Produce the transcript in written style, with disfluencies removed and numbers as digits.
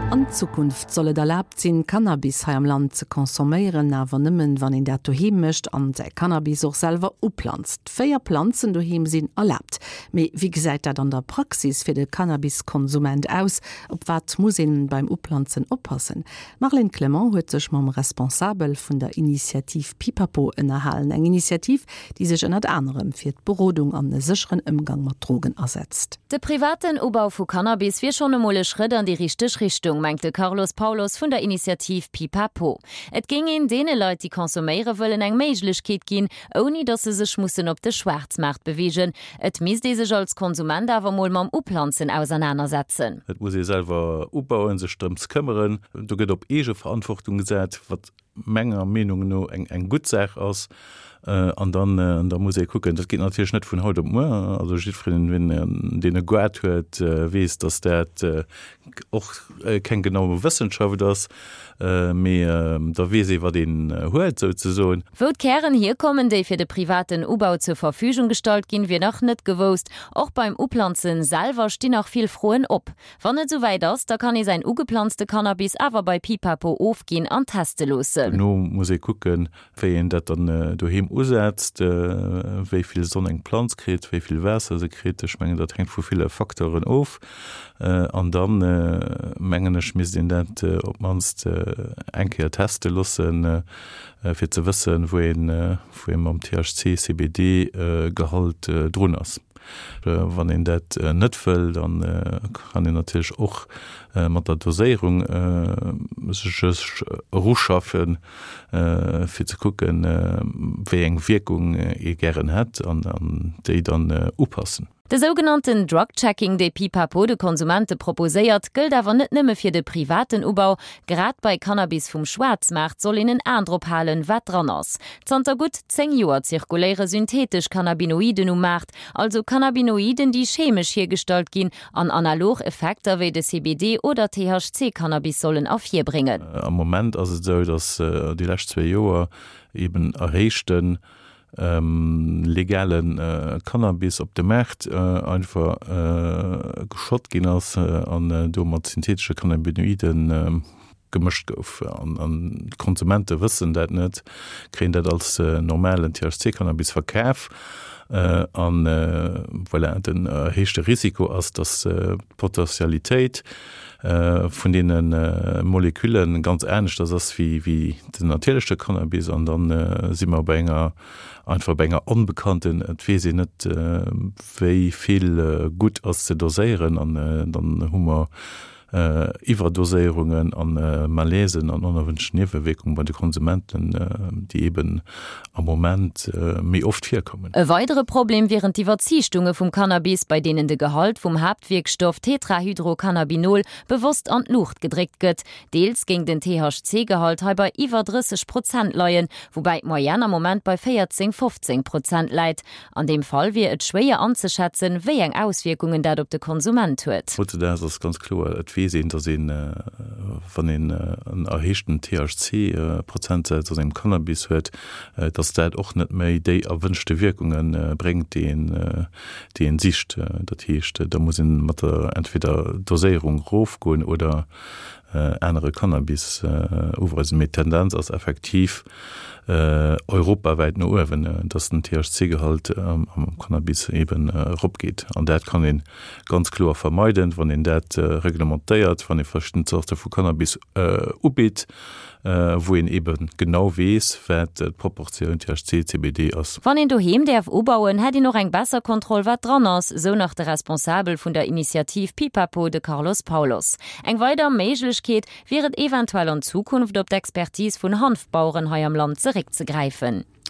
An Zukunft soll et erlaabt sinn, Cannabis hei am Land ze consomméieren, awer nëmmen, wann een dat doheem mécht an säi Cannabis och selwer uplanzt. 4 Planzen doheem sinn erlaabt. Mee wéi gesäit dat an der Praxis fir de Cannabis-Konsument aus? Op wat muss een beim Uplanzen oppassen? D'Marlène Clement huet sech mam Responsabel vun der Initiativ Pipapo ënnerhalen. Eng Initiativ, déi sech ënnert anerem fir d'Berodung an e sécheren Ëmgang mat Drogen asetzt. De privaten Ubau vu Cannabis wier schonn emol e Schrëtt an déi richteg Richtung, mengt de Carlos Paulos vun der Initiativ Pipapo. Et géing een deene Leit, déi consomméiere wëllen, eng Méiglechkeet ginn, ouni datt se sech mussen op de Schwaarzmaart beweegen. Et misst ee sech als Konsument awer mol mam Uplanzen ausernanersetzen. Et muss ee selwer ubauen, sech drëms këmmeren. Do gëtt op Eegeverantwortung gesat, wat menger Meenung no eng gutt Saach ass. An dann da muss ee kucken, dat geet natierlech net vun haut op muer. Also jiddwereen, deen e Gaart huet, weess, datt dat och keng genau Wëssenschaft ass, mee da weess ee wat een huet souzesoen. Wou d'Kären hierkommen, déi fir de privaten Ubau zur Verfügung gestallt ginn, wier nach net gewousst. Och beim Uplanzen selwer stinn nach vill Froen op. Wann et souwäit ass, da kann ee säin ugeplanzte Cannabis awer bei Pipapo ofginn an teste loossen. Dono muss ee kucken, wéi een dat dann doheem usetzt, wéi vill Sonn eng Planz kritt, wéi vill Waasser se kritt. Ech mengen, dat hänkt vu ville Facteuren of. An dann, mengen ech, misst een dat op d'mannst eng Kéier teste loossen, fir ze wëssen, wou een, wou ee mam THC, CBD Gehalt drun ass. Wann een dat net wëll, da kann een natierlech och mat der Doséierung sech eruschaffen, fir ze kucken, wéi eng Wierkung ee gären hätt an déi dann upassen. De sougenannten Drug Checking, dee Pipapo de Konsumente proposéiert, gëllt awer net nëmme fir de privaten Ubau. Grad bei Cannabis vum Schwaarzmaart soll een en An drop halen, wat dran ass. Zanter gutt 10 Joer zirkuléiere syntheetesch Cannabinoiden um Maart, also Cannabinoiden, déi chemesch hiergestallt ginn an analog Effekter wéi de CBD oder THC-Cannabis sollen ervirbréngen. Am Moment ass et esou, datt déi lescht zwee Joer eben erhéichte legale Cannabis op de Maart einfach geschott ginn ass an do mat syntheetesche Cannabinoiden gemëscht gouf. An d'Konsumente wëssen dat net, kréien dat als normalen THC-Cannabis verkaf. An voilà, den erhéichte Risiko ass, datt d'Potentialitéit vun deene Molekülle ganz aneschters ass wéi den natierleche Cannabis. An da si mer bei enger, einfach bei enger Onbekannten. Et weess een net, wéi vill gutt ass ze doséieren. An dann hu mer Iwwerdoséierungen a Malaisen an onerwünschten Niewewierkungen bei de Konsumenten, déi eben am Moment méi oft virkommen. E weidere Problem wieren d'Iwwerziichtunge vum Cannabis, bei deenen de Gehalt vum Haaptwierkstoff Tetrahydrocannabinol bewosst an d'Luucht gedréckt gëtt. Deels géing den THC-Gehalt hei bei iwwer 30 Prozent leien, woubäi d'Moyenne am Moment bei 14, 15 Prozent läit. An deem Fall wier et schwéier anzeschätzen, wéi eng Auswierkungen dat op de Konsument huet. Hautzedaags ass ganz kloer, et weess een, datt een, wann een en erhéichten THC-Prozentsaz a sengem Cannabis huet, datt dat och net méi déi erwënschte Wierkunge bréngt, déi een, déi een sicht. Dat heescht, da muss een mat der entweder Doséierung erofgoen oder anere Cannabis uweisen. Mee d'Tendenz ass effektiv europawäit no uewen, dass den THC-Gehalt am Cannabis eben eropgeet. An dat kann ee ganz kloer vermeiden, wann een dat reglementéiert, wann ee verschidden Zorte vu Cannabis ubitt, wou een ebe genau weess, wat d'Proportioun THC, CBD ass. Wann een doheem däerf ubauen, hätt een och eng besser Kontroll, wat dran ass, sou nach de Responsabel vun der Initiativ Pipapo, de Carlos Paulos. Eng weider Méiglechkeet wier et eventuell an Zukunft op d'Expertise vun Hanfbaueren hei am Land zeréckzegräifen.